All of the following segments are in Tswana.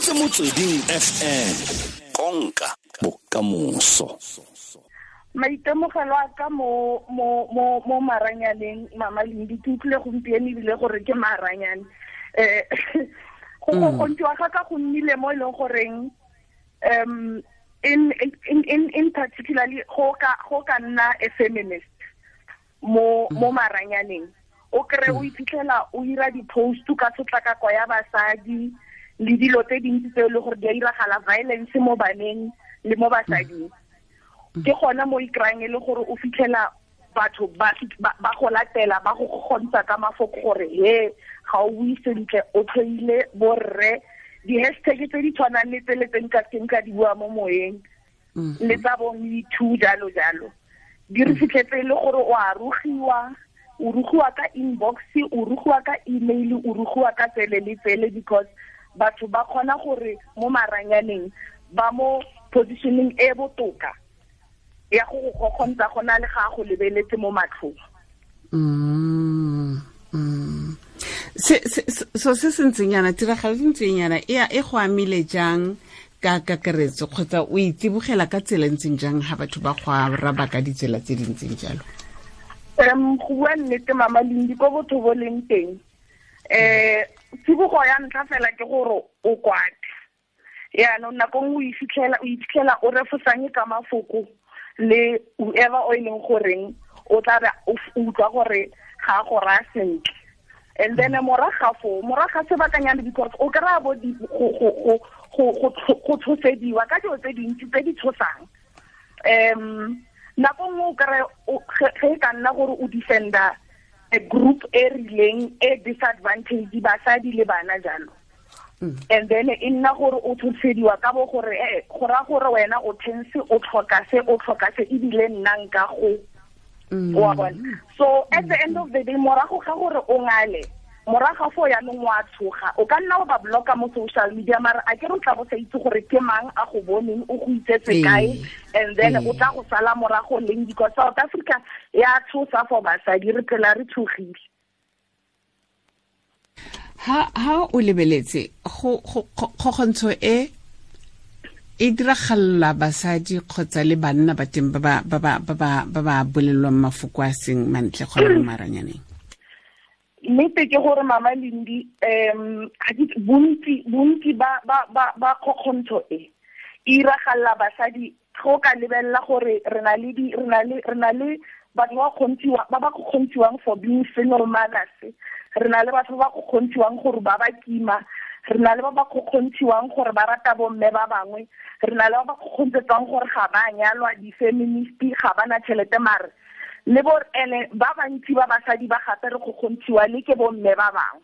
reditse Motsweding FM, konka bokamoso. Maitemogelo a ka mo maranyaneng, Mama Lindi, ke utlwile gompieno ebile gore ke maranyane. Go kgokgontshiwa ga ka go nnile mo e leng goreng in particularly go ka nna a feminist mo maranyaneng. O kry o iphitlhela o ira di-post ka tshotlakako ya basadi le dilo tse dintsi tse e leng gore di a iragala, violence mo baneng le mo basading. Ke gona mo ikryang e le gore o fitlhela batho ba go latela, ba go kgontsha ka mafoko gore he ga o bue sentle, o tlhoile borre, di-hashtag tse di tshwanang le tsele tse nka seng ka di bua mo moyeng, le tsa bo Me Too jalo jalo. Di re fitlhetse e le gore o a rugiwa, o rugiwa ka inbox, o rugiwa ka email, o rugiwa ka tsele le tsele, because batho ba kgona gore mo maranyaneng ba mo positioning e botoka ya go go kgontsha go na le ga go lebeletse mo matlhong. Se se ntseng yana, tiragalo e ntseng yana e go amile jang ka kakaretso, kgotsa o itsibogela ka tsela e ntseng jang ha batho ba go araba ka ditsela tse di ntseng jalo? Go bua nnete, Mama Lindi, ko botho bo leng teng, tsibogo ya ntlha fela ke gore o kwate. Yaanong nako nngwe o iphitlhela o refosanye ka mafoko le whoever o e leng goreng o tla be o utlwa gore ga go raya sentle. And then morago ga sebakanyana, because o kry-a bo go tshosediwa ka dilo tse dintsi tse di tshosang. Nako nngwe o kry-e ge e ka nna gore o defender a group e rileng e disadvantage, basadi le bana jalo. And then e nna gore o tshosediwa ka bo gore go raya gore wena o tense, o tlhoka se, o tlhoka se, ebile nna nka go. Wa bona. So at the end of the day, morago ga gore o ngale, morago fo yaanong wa tshoga, o ka nna wa ba blocka mo social media, mara a ke re o tla bo sa itse gore ke mang a go boneng, o go itsetse kae, and then o tla go sala morago leng, because South Africa ya tshosa for basadi, re phela re tshogile. Ha o lebeletse go kgokgontsho e e diragalla basadi kgotsa le banna ba teng ba ba bolelwang mafoko a seng mantle gona mo maranyaneng? Nnete ke gore, Mama Lindi, bontsi ba kgokgontsho e iragalla basadi. Go ka lebelela gore re na le batho ba ba kgontshiwang for being single mothers, re na le batho ba ba kgontshiwang gore ba ba kima, re na le ba ba kgontshiwang gore ba rata bomme ba bangwe, re na le ba ba kgontsetswang gore ga ba nyalwa, di-feminist, ga ba na tšhelete, mare le bo ene ba bantsi ba basadi ba gape re kgontshiwa le ke bomme ba bangwe.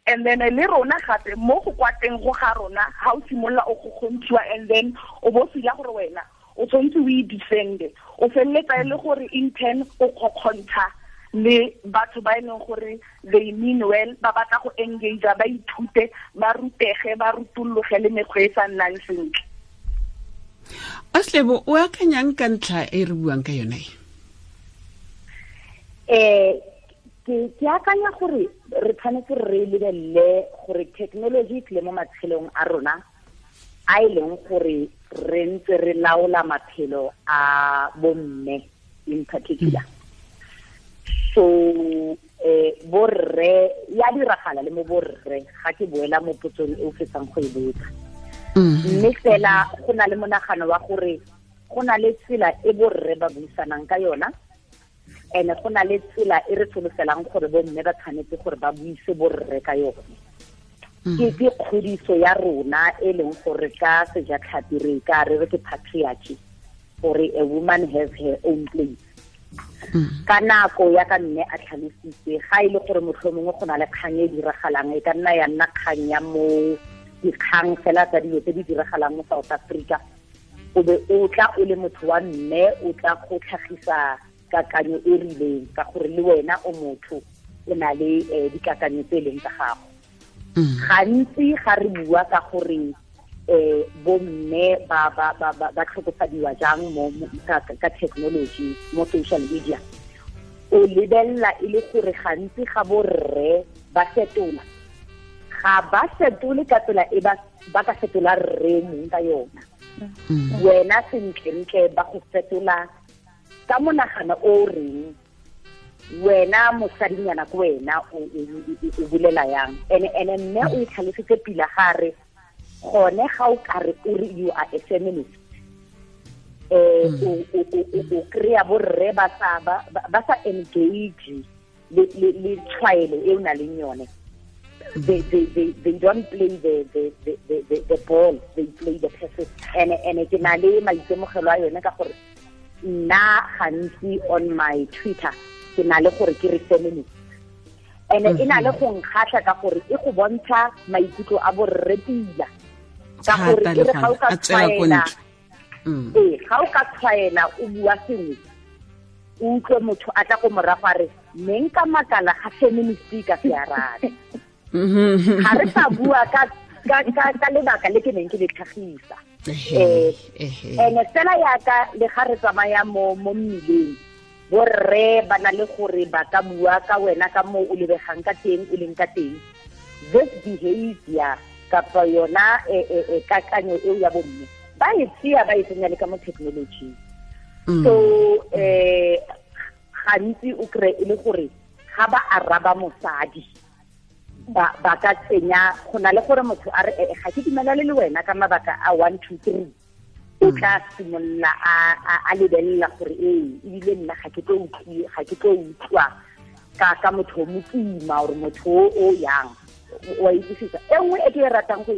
And then le rona gape mo go kwateng go ga rona, ha o simolola o kgontshiwa, and then o bo fila gore wena o tshwanetse o e defende, o feleletsa e le gore in turn o kgokgontsha le batho ba e leng gore they mean well, ba batla go engage, ba ithute, ba rutege, ba rutologe le mekgwa e sa nnang sentle. Aslebo, o akanyang ka ntlha e re buang ka yone? Ke akanya gore re tshwanetse re lebelele gore technology e tlile mo matshelong a rona, a e leng gore re ntse re laola maphelo a bomme in particular. So borre ya diragala le mo borre, ga ke boela mo potsong e o fetsang go e botsa. Mme fela go na le monagano wa gore go na le tsela e borre ba buisanang ka yona, ene go na le tsela e re solofelang gore bomme ba tshwanetse gore ba buise borre ka yone. Ke kgodiso ya rona e leng gore ka sejatlhapi re ka re re ke patriarchy, gore a woman has her own place. Ka nako ya ka mme a tlhalositse, ga e le gore mohlomongwe go na le kgang e diragalang, e ka nna ya nna kgang ya mo dikgang fela tsa dilo tse di diragalang mo South Africa, o be o tla o le motho wa mme o tla go tlhagisa kakanyo e rileng, ka gore le wena o motho o na le dikakanyo tse e leng tsa gago. Gantsi ga re bua ka gore bomme ba ba ba ba tlhokofadiwa jang mo ka technology mo social media, o lebella e le gore gantsi ga borre ba fetola, Ga ba fetole ka tsela e ba ka fetola rre mong ka yona. Wena sentlentle ba go fetola ka monagano o reng wena mosadinyana ko wena o bulela yang. Ene mme o itlhalositse pila gare gone ga o kare o re you are a feminist, o kry-a borre ba sa engage le tshwaelo e o na leng yone. They don't play the ball, they play the passes. And ke na le maitemogelo a yone ka gore nna gantsi on my Twitter ke na le gore ke re feminist. And e na le go nkgatlha ka gore e go bontsha maikutlo a borre pila. Ka gore e re ga o ka tshwaela, ga o ka tshwaela o bua sengwe, o utlwe motho a tla go morago a re ne nka makala ga feminist ka se arabe. Ga re sa bua ka lebaka le ke neng ke le tlhagisa. Ene fela yaka le ga re tsamaya mo mmileng, borre ba na le gore ba ka bua ka wena ka mo o lebegang ka teng, o leng ka teng. This behavior kapa yona kakanyo eo ya bomme ba e tseya ba e tsenya le ka mo technology. So gantsi o kry e le gore ga ba araba mosadi ba ka tsenya go na le gore motho a re ga ke dumelane le wena ka mabaka a 1 2 3, o tla simolola a lebelela gore ebile nna ga ke tlo utlwa ka motho o mokima or motho o yang wa utlwisisa. E nngwe e ke e ratang go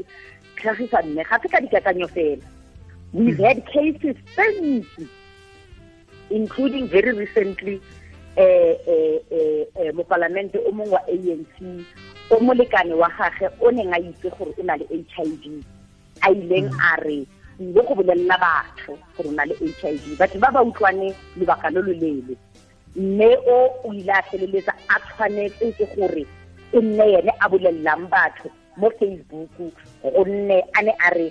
tlhagisa mme ga se ka dikakanyo fela. We've had cases tse ntsi, including very recently mopalamente o mongwe wa ANC o molekane wa gagwe o neng a itse gore o na le HIV, a ileng a re ile go bolelela batho gore o na le HIV. Batho ba ba utlwane lobaka lo lo leele, mme o ile a feleletsa a tshwanetse ke gore e nne ene a bolelelang batho mo Facebook, gonne a ne a re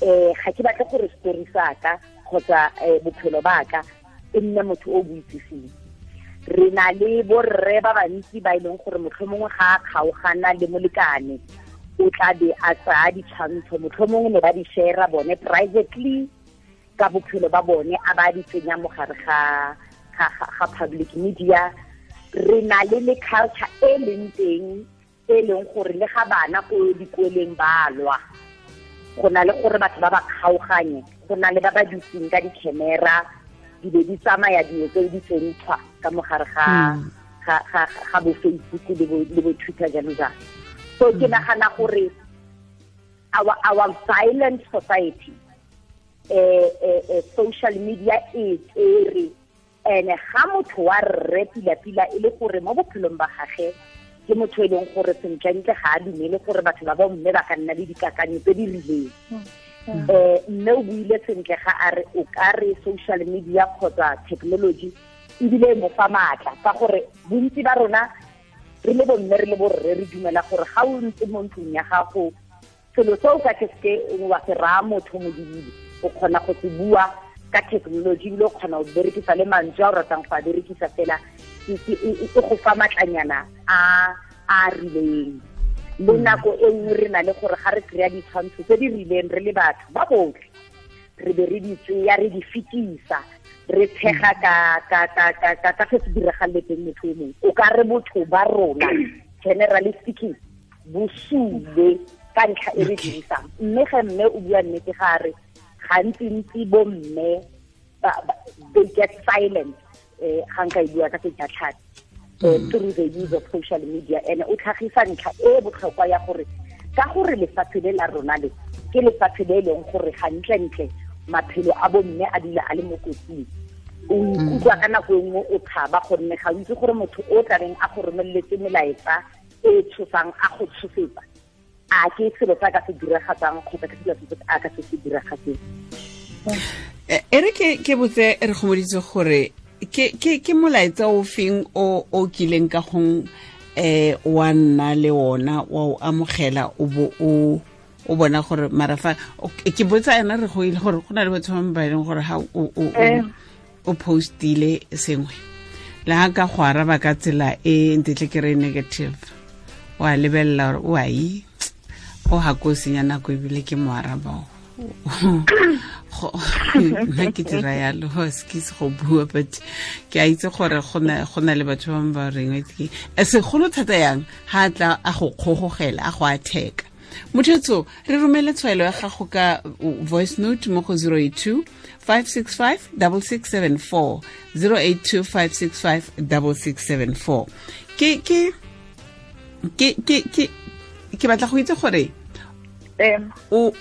ga ke batle gore story sa ka kgotsa bophelo ba ka e nne motho o boitsiseng. Re na le borre ba bantsi ba e leng gore motlhomongwe ga a kgaogana le molekane o tla be a tsaya ditshwantsho, motlhomongwe ne ba di share bone privately ka bophelo ba bone, a ba di tsenya mo gare ga public media. Re na le culture e leng teng e leng gore le ga bana ko dikoleng ba lwa, go na le gore batho ba ba kgaoganye, go na le ba ba dutseng ka di-camera di be di tsamaya dilo tseo di tsentshwa ka mogare ga bo Facebook le bo Twitter jalo jalo. So ke nagana gore our violent society, social media e tsere, ene ga motho wa rre pila-pila e le gore mo bophelong ba gagwe ke motho e leng gore sentlentle ga a dumele gore batho ba bomme ba ka nna le dikakanyo tse di rileng. Mme o buile sentle ga a re o ka re social media kgotsa technology ebile e mo fa maatla, ka gore bontsi ba rona re le bomme re le borre re dumela gore ga o ntse mo ntlong ya gago selo se o ka ke seke wa se raya motho modibile, o kgona go se bua ka technology ebile o kgona go berekisa le mantswe a o ratang go a berekisa fela, e go fa matlanyana a rileng. Le nako e nngwe re na le gore ga re kry-a ditshwantsho tse di rileng re le batho ba botlhe, re be re di tseya re di fetisa, re tshega ka se se diragaletseng motho o mongwe. O ka re botho ba rona generally speaking bo sule ka ntlha e re dirisang. Mme ge mme o bua nnete ga re gantsi-ntsi bo mme they get silent ga nka e bua ka sejatlhapi through the use of social media. And o tlhagisa ntlha e botlhokwa ya gore ka gore lefatshe le la rona le ke lefatshe le e leng gore gantlentle maphelo a bomme a dula a le mo kotsing, o ikutlwa ka nako e nngwe o tshaba gonne ga o itse gore motho o tla reng a go romeletse melaetsa e tshosang a go tshosetsa, a ke selo se a ka se diragatsang kgotsa ke selo se a ka se se diragatseng. E re ke botse re gomoditse gore ke molaetsa o feng o kileng ka gong wa nna le ona wa o amogela o bo o bona gore marafa ke botsa ena re go ile gore go na le batho ba ba leng gore ha o postile sengwe le ha ka go araba ka tsela e ntetle ke re negative, wa lebelela gore o a e O ha ko senya nako ebile ke mo araba. Nna ke dira yalo, excuse go bua, but ke a itse gore go na le batho ba ba reng ke segolo thata yang ha tla a go kgogogela a go atheka. Mothetso, re romele tshwaelo ya gago ka voice note mo go 082 565 6674, 082 565 6674. Ke batla go itse gore o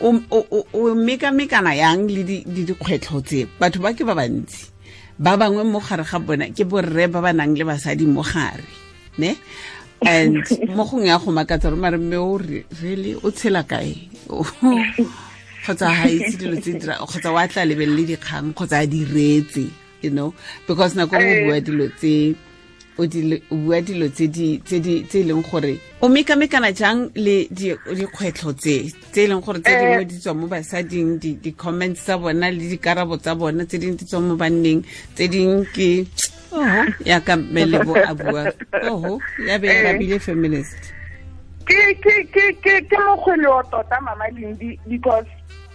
mekamekana yang le dikgwetlho tse. Batho ba ke ba bantsi, ba bangwe mo gare ga bona ke borre ba ba nang le basadi mo gare, ne? And mo gongwe ya go makatsa gore mare mme o really o tshela kae, kgotsa ha itse dilo tse dira, kgotsa wa tla lebelele dikgang, kgotsa a di reetse, you know, because nako o bua dilo tse o bua dilo tse di tse leng gore o mekamekana jang le dikgwetlho tse e leng gore tse dingwe di tswa mo basading, di-comments tsa bona le dikarabo tsa bona, tse dingwe di tswa mo banneng, tse dingwe ke oho ya ka Melebo a bua, oho ya be ya rabile feminist. Ke mokgwele wa tota Mama Lindi, because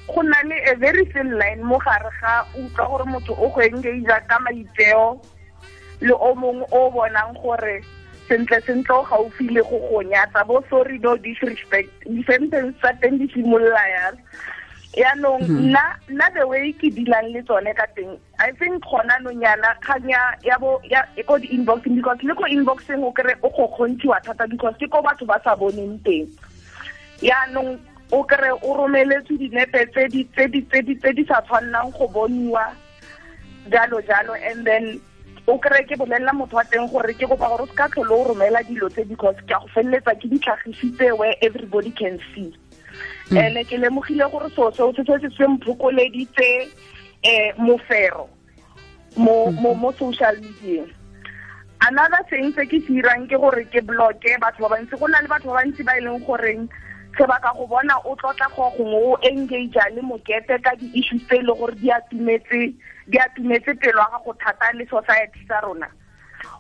go na le a very thin line mo gare ga utlwa gore motho o go engage ka maitseo le o mongwe o bonang gore sentle sentle o gaufi le go go nyatsa, bo sorry no disrespect, di-sentence tsa teng di simolola yalo. Yaanong nna the way ke dealang le tsone ka teng, I think gona nonyana kgang ya bo ya ko di-inboxing, because le ko inboxing o kry o go kgontshiwa thata because ke ko batho ba sa boneng teng. Yaanong o kry o romeletswe dinepe tse di sa tshwannang go boniwa, jalo jalo, and then o kry ke bolelela motho wa teng gore ke kopa gore o se ka tlhole o romela dilo tse, because ke a go feleletsa ke di tlhagisitse where everybody can see. And ke lemogile gore so seo se se se mphokoleditse mofero mo social media. Another thing se ke se irang ke gore ke blocke batho ba bantsi. Go na le batho ba bantsi ba e leng goreng se ba ka go bona o tlotla go gongwe o engage le mokete ka di-issues tse e leng gore di atumetse pelo ya gago thata le society sa rona.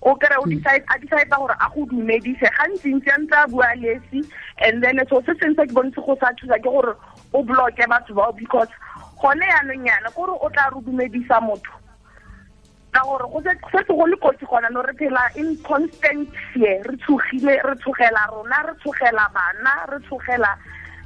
O kry o decide a decide gore a go dumedise gantsi-ntsi a ntse a bua lesi, and then so se sengwe se ke bontse go sa thusa ke gore o blocke batho bao, because gone yaanong yana kore o tla re dumedisa motho ka gore go setse go le kotsi gona no, re phela in constant fear, re tshogile, re tshogela rona, re tshogela bana, re tshogela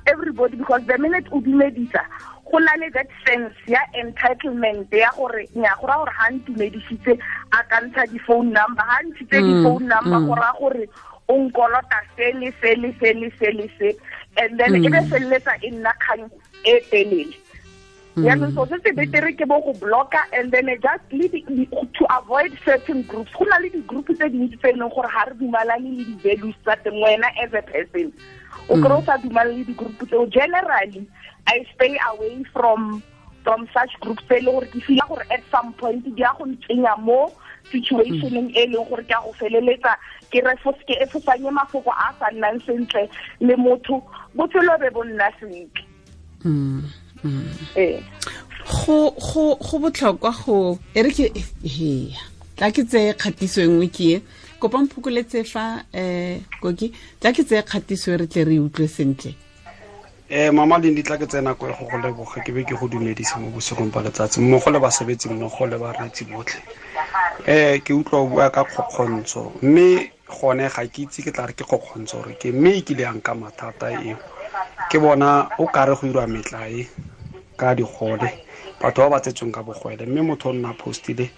everybody, because the minute o dumedisa go na le that sense ya entitlement ya gore nya go ra gore ha ntumedisitse a ka ntsha di-phone number, ha ntshitse di-phone number go ra gore o nkolota se le se le se le se le se, and then e be feleletsa e nna kgang e telele. Yaanong so se se betere ke bo go blocka, and then just leave to avoid certain groups. Go na le di-group tse dintsi tse e leng gore ga re dumalane le di-values tsa teng, wena as a person o kry o sa dumalane le di-group tseo. Generally I stay away from such groups tse e leng gore ke feel gore at some point di ya go ntsenya mo situationeng e leng gore ke a go feleletsa ke efosanye mafoko a sa nnang sentle le motho, botshelo be bo nna sentle. Go botlhokwa go e re ke he tla ke tseye kgatiso e nngwe ke e kopa mphokoletse fa koki tla ke tseye kgatiso e re tle re utlwe sentle. Mama Lindi, tla ke tsena ko go go leboga, ke be ke go dumedisa mo bosigong ba letsatsi mmogo le basebetsi mmogo le bareetsi botlhe. Ke utlwa o bua ka kgokgontsho, mme gone ga ke itse ke tla re ke kgokgontsho gore ke mme e kile yang ka mathata eo. Ke bona o kare go irwa metlae ka digole, batho ba ba tsetsweng ka bogwele, mme motho o nna postile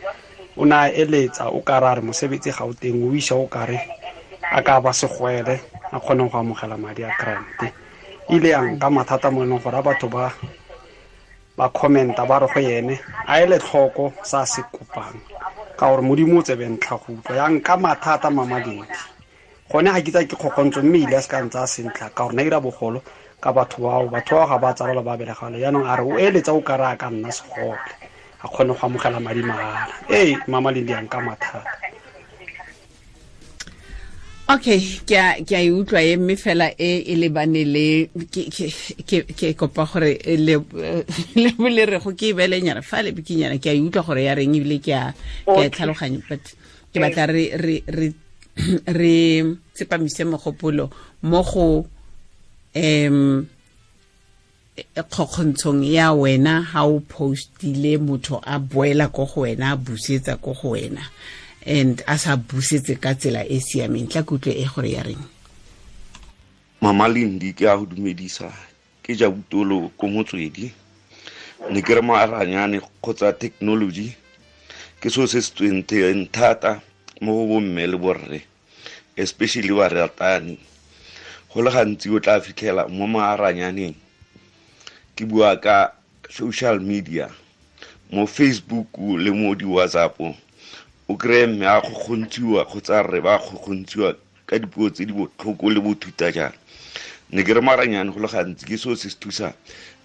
o na eletsa o kare a re mosebetsi ga o teng, o isa o kare a ka ba segwele a kgone go amogela madi a grant. Ile yang ka mathata mo e leng gore a batho ba commenta ba re go ene a ele tlhoko sa se kopang, ka gore Modimo o tsebe ntlha go utlwa. Yang ka mathata Mama Lindi, gone ga ke tsa ke kgokgontsho, mme ile a se ka ntse a sentle ka gore na ira bogolo ka batho bao, batho bao ga ba tsalwa ba belegalo. Yaanong a re o eletsa o kare a ka nna segole a kgone go amogela madi mahala. Ee Mama Lindi, yang ka mathata. Okay, ke a e utlwa e mme fela e lebane le ke kopa gore le le re go ke belenyana fa le bikinyana, ke a e utlwa gore ya reng ebile ke a tlhaloganya, but ke batla re re tsepamise mogopolo mo go kgokgontshong ya wena ha o postile motho a boela ko go wena a busetsa ko go wena and a sa busetse ka tsela e siameng. Tla kutlwe e gore ya reng. Mama Lindi, ke a go dumedisa, ke ja butolo ko Motswedi. Ne ke re maranyane kgotsa technology ke seo se se tsweng thata mo go bomme le borre, especially baratani. Go le gantsi o tla fitlhela mo maranyaneng, ke bua ka social media, mo Facebook le mo di-WhatsApp, o kry-e mme a kgokgontshiwa kgotsa rre ba kgokgontshiwa ka dipuo tse di botlhoko le bothuta jang. Ne ke re maranyane go le gantsi ke seo se se thusang,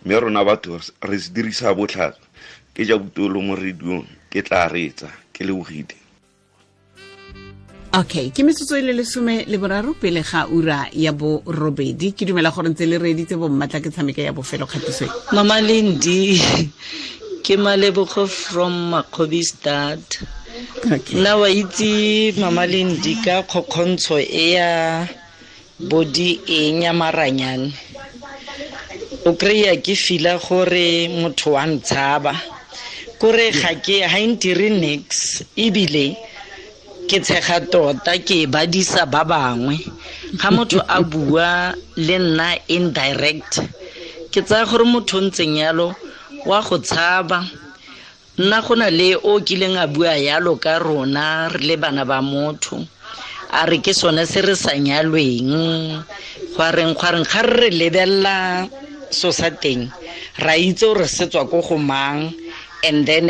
mme rona batho re se dirisa botlhaswa. Ke ja butolo mo radiong, ke tla reetsa, ke lebogile. Okay, ke metsotso e le 13 pele ga ura ya 8. Ke dumela gore ntse le reeditse bommatla ke tshameka ya bofelo kgatiso e. Mama Lindi, ke Malebogo from Makgobistad. Okay. Nna wa itse Mama Lindi ka kgokgontsho e ya body eng ya maranyane. O kry-a ke fila gore motho wa ntshaba. Kore ga ke ha ntire nix, ebile ke tshega tota ke badisa ba bangwe. Ga motho a bua le nna indirect, ke tsaya gore motho o ntseng yalo wa go tshaba. Nna go na le o kileng a bua yalo ka rona re le bana ba motho, a re ke sone se re sa nyalweng, gwa reng ga re lebella so sa teng ra itse gore se tswa ko go mang, and then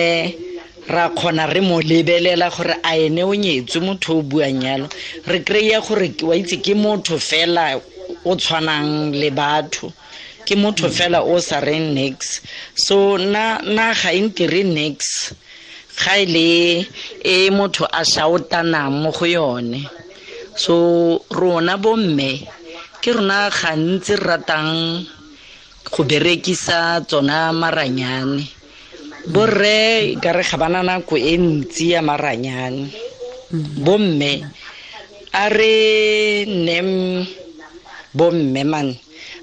ra kgona re mo lebelela gore a ene o nyetswe motho o buang yalo. Re kry-a gore wa itse ke motho fela o tshwanang le batho, ke motho fela o sa reng nix. So nna ga e ntire nix ga e le e motho a shoutanang mo go yone. So rona bomme ke rona gantsi re ratang go berekisa tsona maranyane. Borre ka re ga bana nako e ntsi ya maranyane. Bomme a re nnem bomme man,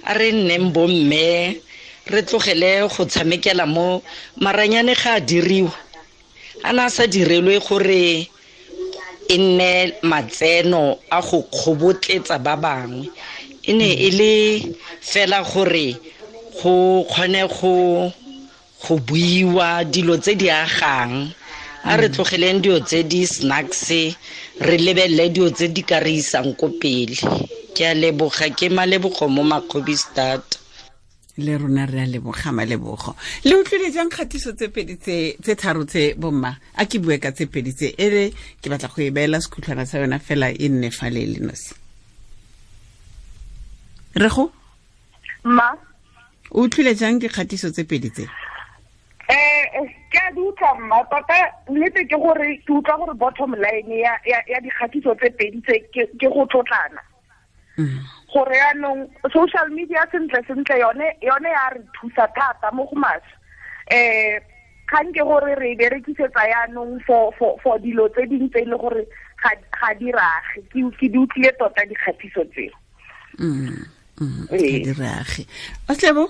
a re nneng bomme, re tlogele go tshamekela mo maranyane. Ga a diriwa, a na sa direlwe gore e nne matseno a go kgobotletsa ba bangwe. E ne e le fela gore go kgone go buiwa dilo tse di agang. A re tlogeleng dilo tse di snacks, re lebelele dilo tse di ka re isang ko pele. Ke a leboga, ke Malebogo mo Makgobistad. Le rona re a leboga Malebogo. Le utlwile jang kgatiso tse pedi tse tharo tse bomma? A ke bue ka tse pedi tse, ere ke batla go e beela sekhutlhwana sa yona fela e nne fa le le nosi. Rego? Ma? O utlwile jang dikgatiso tse pedi tse? Ke a di utlwa mma, tota nnete ke gore ke utlwa gore bottom line ya dikgatiso tse pedi tse ke go tlotlana. Gore yaanong social media sentle sentle yone ya re thusa thata mo go maswe. Kgang ke gore re e berekisetsa yaanong for dilo tse dingwe tse e le gore ga di rage. Ke di utlwile tota dikgatiso tseo. Ga di rage. Oslebo?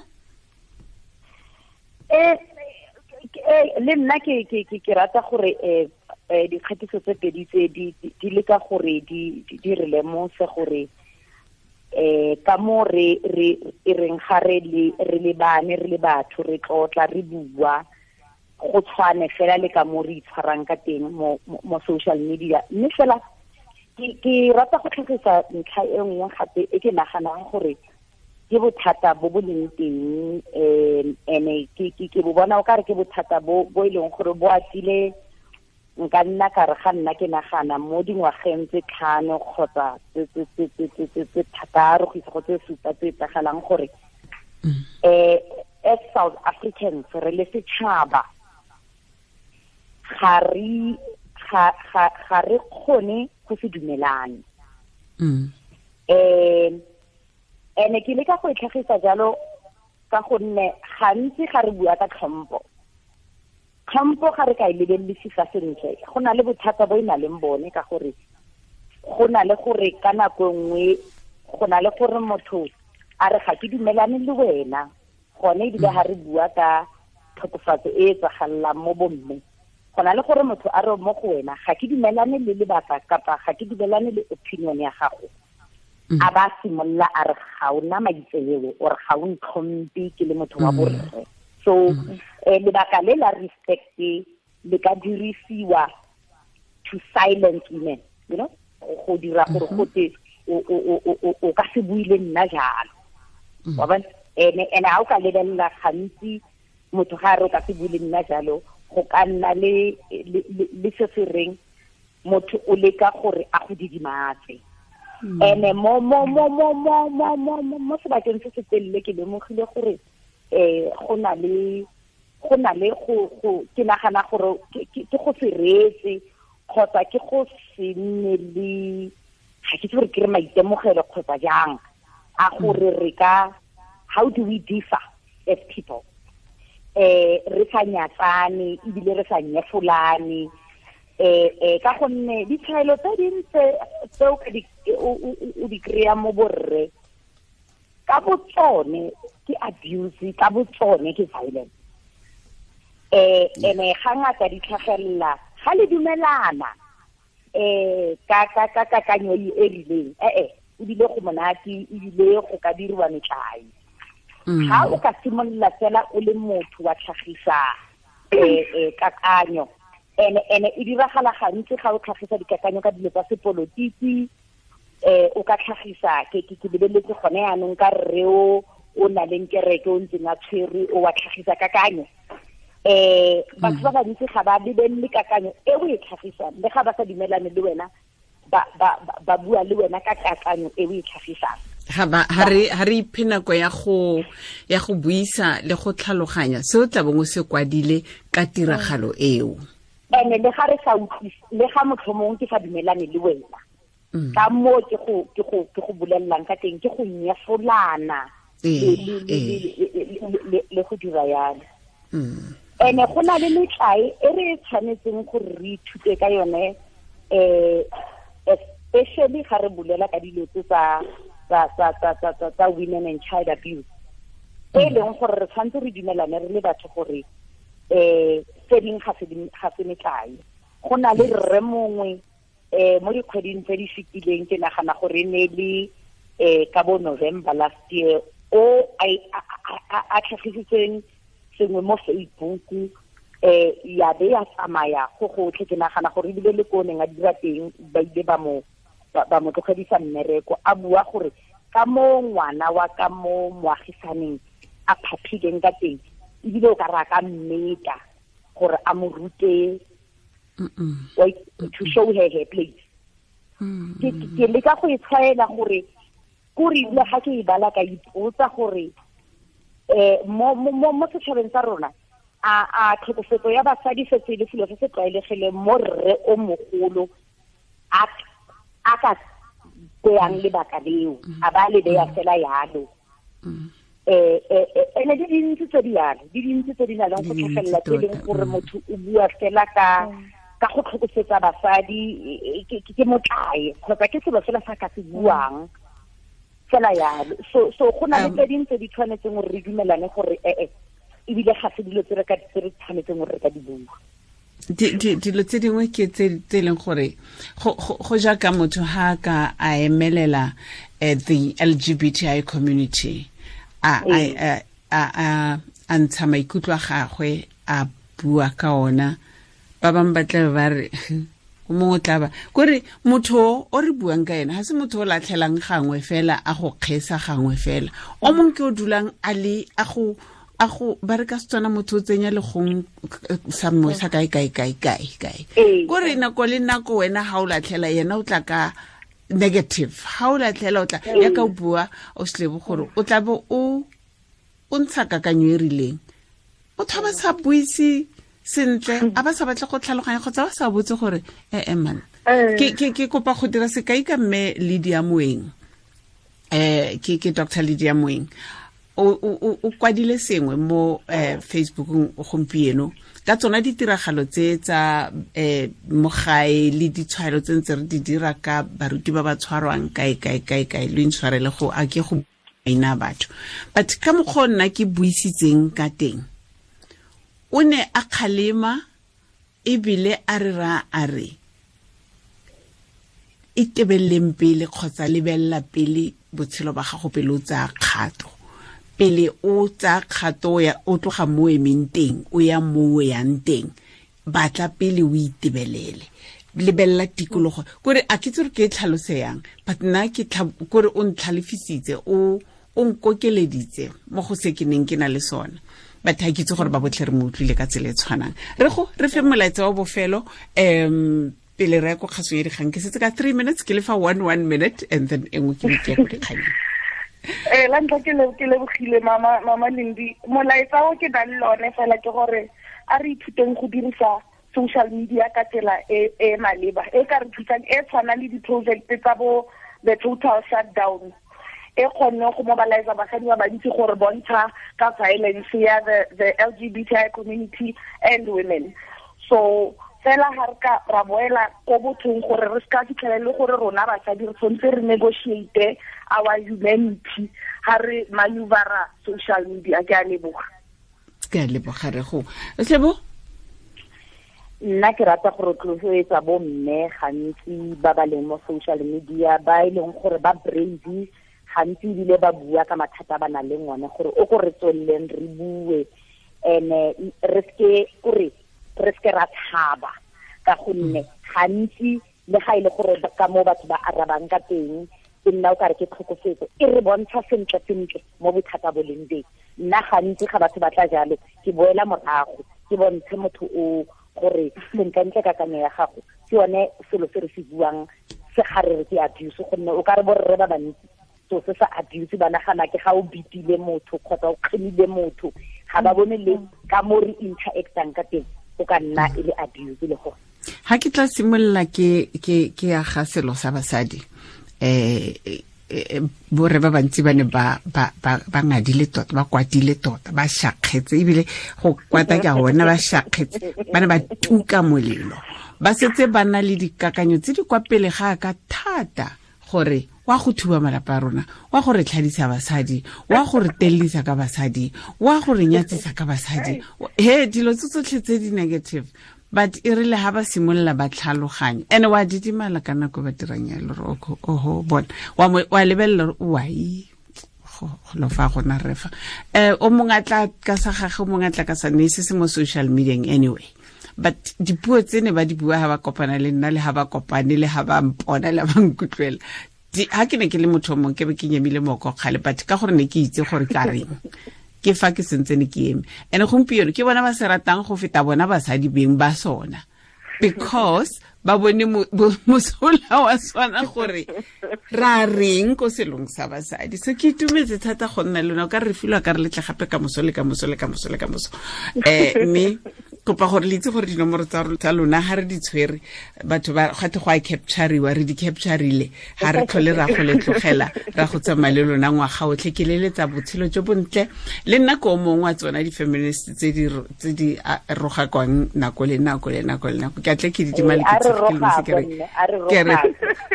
Le nna ke rata gore dikgatiso tse pedi tse di leka gore di re lemose gore ka mo re e reng ga re lebane re le batho re tlotla re bua go tshwane fela le ka mo re itshwarang ka teng mo social media. Mme fela ke rata go tlhagisa ntlha e nngwe gape e ke naganang gore ke bothata bo bo leng teng, ene ke bo bona o kare ke bothata bo e leng gore bo atile. Nka nna ka re ga nna ke nagana mo dingwageng tse 5 kgotsa tse 6 go isa go tse 7 tse etsagalang gore as South Africans re le setšhaba ga re kgone go se dumelane. Ene ke leka go e tlhagisa jalo ka gonne gantsi ga re bua ka tlhompho ga re ka e lebelesisa sentle, go na le bothata bo e na leng bone ka gore go na le gore ka nako nngwe go na le gore motho a re ga ke dumelane le wena, Gone ebile ga re bua ka tlhokofatso e e tsagalelang mo bomme, go na le gore motho a re mo go wena ga ke dumelane le lebaka kapa ga ke dumelane le opinion ya gago, a ba simolola a re ga o na maitseo or ga o ntlhompe ke le motho wa borre. So lebaka le la respect le ka dirisiwa to silence women, you know, go dira gore gote o ka se bue le nna jalo. Wa bona? Ene ha o ka lebelela gantsi motho ga re o ka se bue le nna jalo, go ka nna le se se reng motho o leka gore a go didimatse. Ene mo mo mo mo mo mo mo mo sebakeng se se telele ke lemogile gore go na le go ke nagana gore ke go se reetse kgotsa ke go se nne le ga ke itse gore ke re maitemogelo kgotsa jang a gore re ka how do we differ as people, re sa nyatsane ebile re sa nyefolane, ka gonne ditshwaelo tse dintse tse o ka di o di kry-a mo borre ka botsone ke abuse, ka botsone ke violence. Ene ga ngata di tlhagelela ga le dumelana ka ka ka kakanyo e rileng, ebile go monate ebile go ka diriwa metlae. Ga o ka simolola fela o le motho wa tlhagisa kakanyo, ene e diragala gantsi ga o tlhagisa dikakanyo ka dilo tsa sepolotiki, o ka tlhagisa ke lebeletse gone yanong ka rre o na leng kereke o ntseng a tshwerwe o wa tlhagisa kakanyo. Batho ba bantsi ga ba lebelele kakanyo e o e tlhagisang, le ga ba sa dumelane le wena ba bua le wena ka kakanyo e o e tlhagisang. Ha re iphe nako ya go buisa le go tlhaloganya se o tla bong o se kwadile ka tiragalo eo. Ene le ga re sa utlwise, le ga motlhomong ke sa dumelane le wena, ka moo ke go bolelelang ka teng, ke go nyefolana le go dira yalo. Ene go na le metlae e re tshwanetseng gore re ithute ka yone, especially ga re bulela ka dilo tse tsa women and child abuse, e leng gore re tshwanetse re dumelane re le batho gore tse dingwe ga se metlae. Go na le rre mongwe mo dikgweding tse di fetileng, ke nagana gore e ne le ka bo November last year, o a tlhagisitseng sengwe mo Facebook, ya be ya tsamaya go gotlhe. Ke nagana gore ebile le ko neng a dira teng ba ile ba mo tlogedisa mmereko, a bua gore ka mo ngwana wa ka mo moagisaneng a phaphileng ka teng, ebile o ka re a ka mmeta gore a mo rute to show her her place. Ke leka go e tshwaela gore kore ebile ga ke e bala ka ipotsa gore mo setšhabeng sa rona a tlhokofetso ya basadi setse e le selo se se tlwaelegileng mo rre o mogolo a ka beyang lebaka leo, a ba le beya fela yalo. Ene di dintsi tse di yalo, di dintsi tse di nang le go tlhagelela tse leng gore motho o bua fela ka go tlhokofetsa basadi ke motlae kgotsa ke selo fela sa ka se buang fela yalo. So go na le tse dingwe tse di tshwanetseng gore re dumelane gore ebile ga se dilo tse re tshwanetseng gore re ka di bua. Dilo tse dingwe ke tse leng gore go jaaka motho ha ka a emelela the LGBTI community, a ntsha maikutlo a gagwe a bua ka ona, ba bangwe ba tla ba re o mongwe tla ba kore motho o re buang ka ena ga se motho o latlhelang gangwe fela a go kgesa gangwe fela, o mongwe ke o dulang a le a go ba re ka Setswana motho o tsenya legong sa mongwe sa kae kae kae kae kae, kore nako le nako wena ga o latlhela yena o tla ka negative, ga o latlhela o tla ya ka o bua o selebo gore o tla bo o ntsha kakanyo e rileng, motho a ba sa buise sentle, a ba sa batle go tlhaloganya kgotsa ba sa botse gore man. Ke kopa go dira sekai ka mme Lydia Moeng, ke Dr. Lydia Moeng o kwadile sengwe mo Facebookong gompieno ka tsona ditiragalo tse tsa mo gae le ditshwaelo tse ntse re di dira ka baruti ba ba tshwarwang kae kae kae kae, lo intshwarele go a ke go maina a batho, but ka mokgwa nna ke buisitseng ka teng, o ne a kgalema ebile a re ra a re itebeleng pele kgotsa lebelela pele botshelo ba gago pele o tsaya kgato, pele o tsaya kgato ya o tloga mo emeng teng o ya mo o yang teng, batla pele o itebelele, lebelela tikologo. Kore a ke itse gore ke e tlhalose yang, but nna ke kore o ntlhalefisitse, o nkokeleditse mo go se ke neng ke na le sona. But ha ke itse gore ba botlhe re mo utlwile ka tsela e tshwanang. Re go re fe molaetsa wa bofelo pele re ya ko kgasong ya dikgang. Ke setse ka 3 minutes, ke le fa 1 minute and then e nngwe ke be ke ya ko dikganyeng. La ntlha ke lebogile mama Lindi. Molaetsa o ke nang le one fela ke gore a re ithuteng go dirisa social media ka tsela e e maleba, e ka re thusang, e tshwana le di-project tsa bo the total shutdown, e kgonne go mobilize basadi ba bantsi gore bontsha ka violence ya the LGBTI community and women. So fela ha re ka ra boela ko bothong gore re ska fitlhela le gore rona basadi re tshwanetse re negotiate our humanity ha re maneuver social media. Ke a leboga. Ke a leboga re go. Slebo? Nna ke rata go rotloetsa bo mme gantsi ba ba leng mo social media, ba e leng gore ba brave gantsi ebile ba bua ka mathata ba nang le one, gore o ko re tsweleleng re bue ene re seke kore re seke ra tshaba, ka gonne gantsi le ga ile gore ka mo batho ba arabang ka teng e nna o kare ke tlhokofetso, e re bontsha sentle sentle mo bothata bo leng teng. Nna gantsi ga batho ba tla jalo ke boela morago ke bontshe motho o gore sentlentle kakanyo ya gago ke yone selo se re se buang se ga re re ke abuse, gonne o ka re borre ba bantsi so se sa abuse ba nagana ke ga o bitile motho kgotsa o kgemile motho, ga ba bone le ka mo re interactang ka teng o ka nna e le abuse le gore. Ha ke tla simolola ke aga selo sa basadi, borre ba bantsi ba ne ba ngadile tota, ba kwatile tota, ba shakgetse, ebile go kwata ke a bona ba shakgetse, ba ne ba tuka molelo, ba setse ba na le dikakanyo tse di kwa pele ga ka thata gore wa go thuba malapa a rona, wa go re tlhadisa basadi, wa go re tellisa ka basadi, wa go re nyatsisa ka basadi, he dilo tse tsotlhe tse di negative. But e rile ha ba simolola ba tlhaloganya, ene wa didimala ka nako ba dirang yalo, re oho bona wa lebelela gore wai go lo fa gona re fa o mongwe a tla ka sa gagwe, o mongwe a tla ka sa ne se se mo social media anyway. But dipuo tse ne ba di bua ha ba kopana le nna, le ha ba kopane, le ha ba mpona, le ba nkutlwela, ha ke ne ke le motho o mongwe ke be ke nyemile moko kgale, but ka gore ne ke itse gore ka reng ke fa ke sentse ne ke eme. Ene gompieno ke bona ba se ratang go feta bona basadi beng ba sona, because ba bone mosola wa sona gore ra reng ko selong sa basadi. So ke itumetse thata go nna le lona, o ka re filwa ka re letle gape ka moso le ka moso le ka moso le ka moso. Mme kopa gore le itse gore dinomoro tsa lona ha re di tshwere, batho ba gate go a captureiwa, re di captureile, ha re tlhole ra go le tlogela ra go tsamaya le lona ngwaga otlhe. Ke leletsa botshelo jo bontle le nna ko mongwe wa tsona di-feminist tse di rogakwang nako le nako le nako le nako. Ke a tle ke didimale ke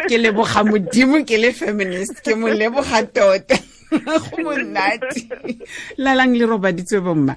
ke leboga Modimo ke le feminist, ke mo leboga tota, go monate. Lalang le robaditswe bomma.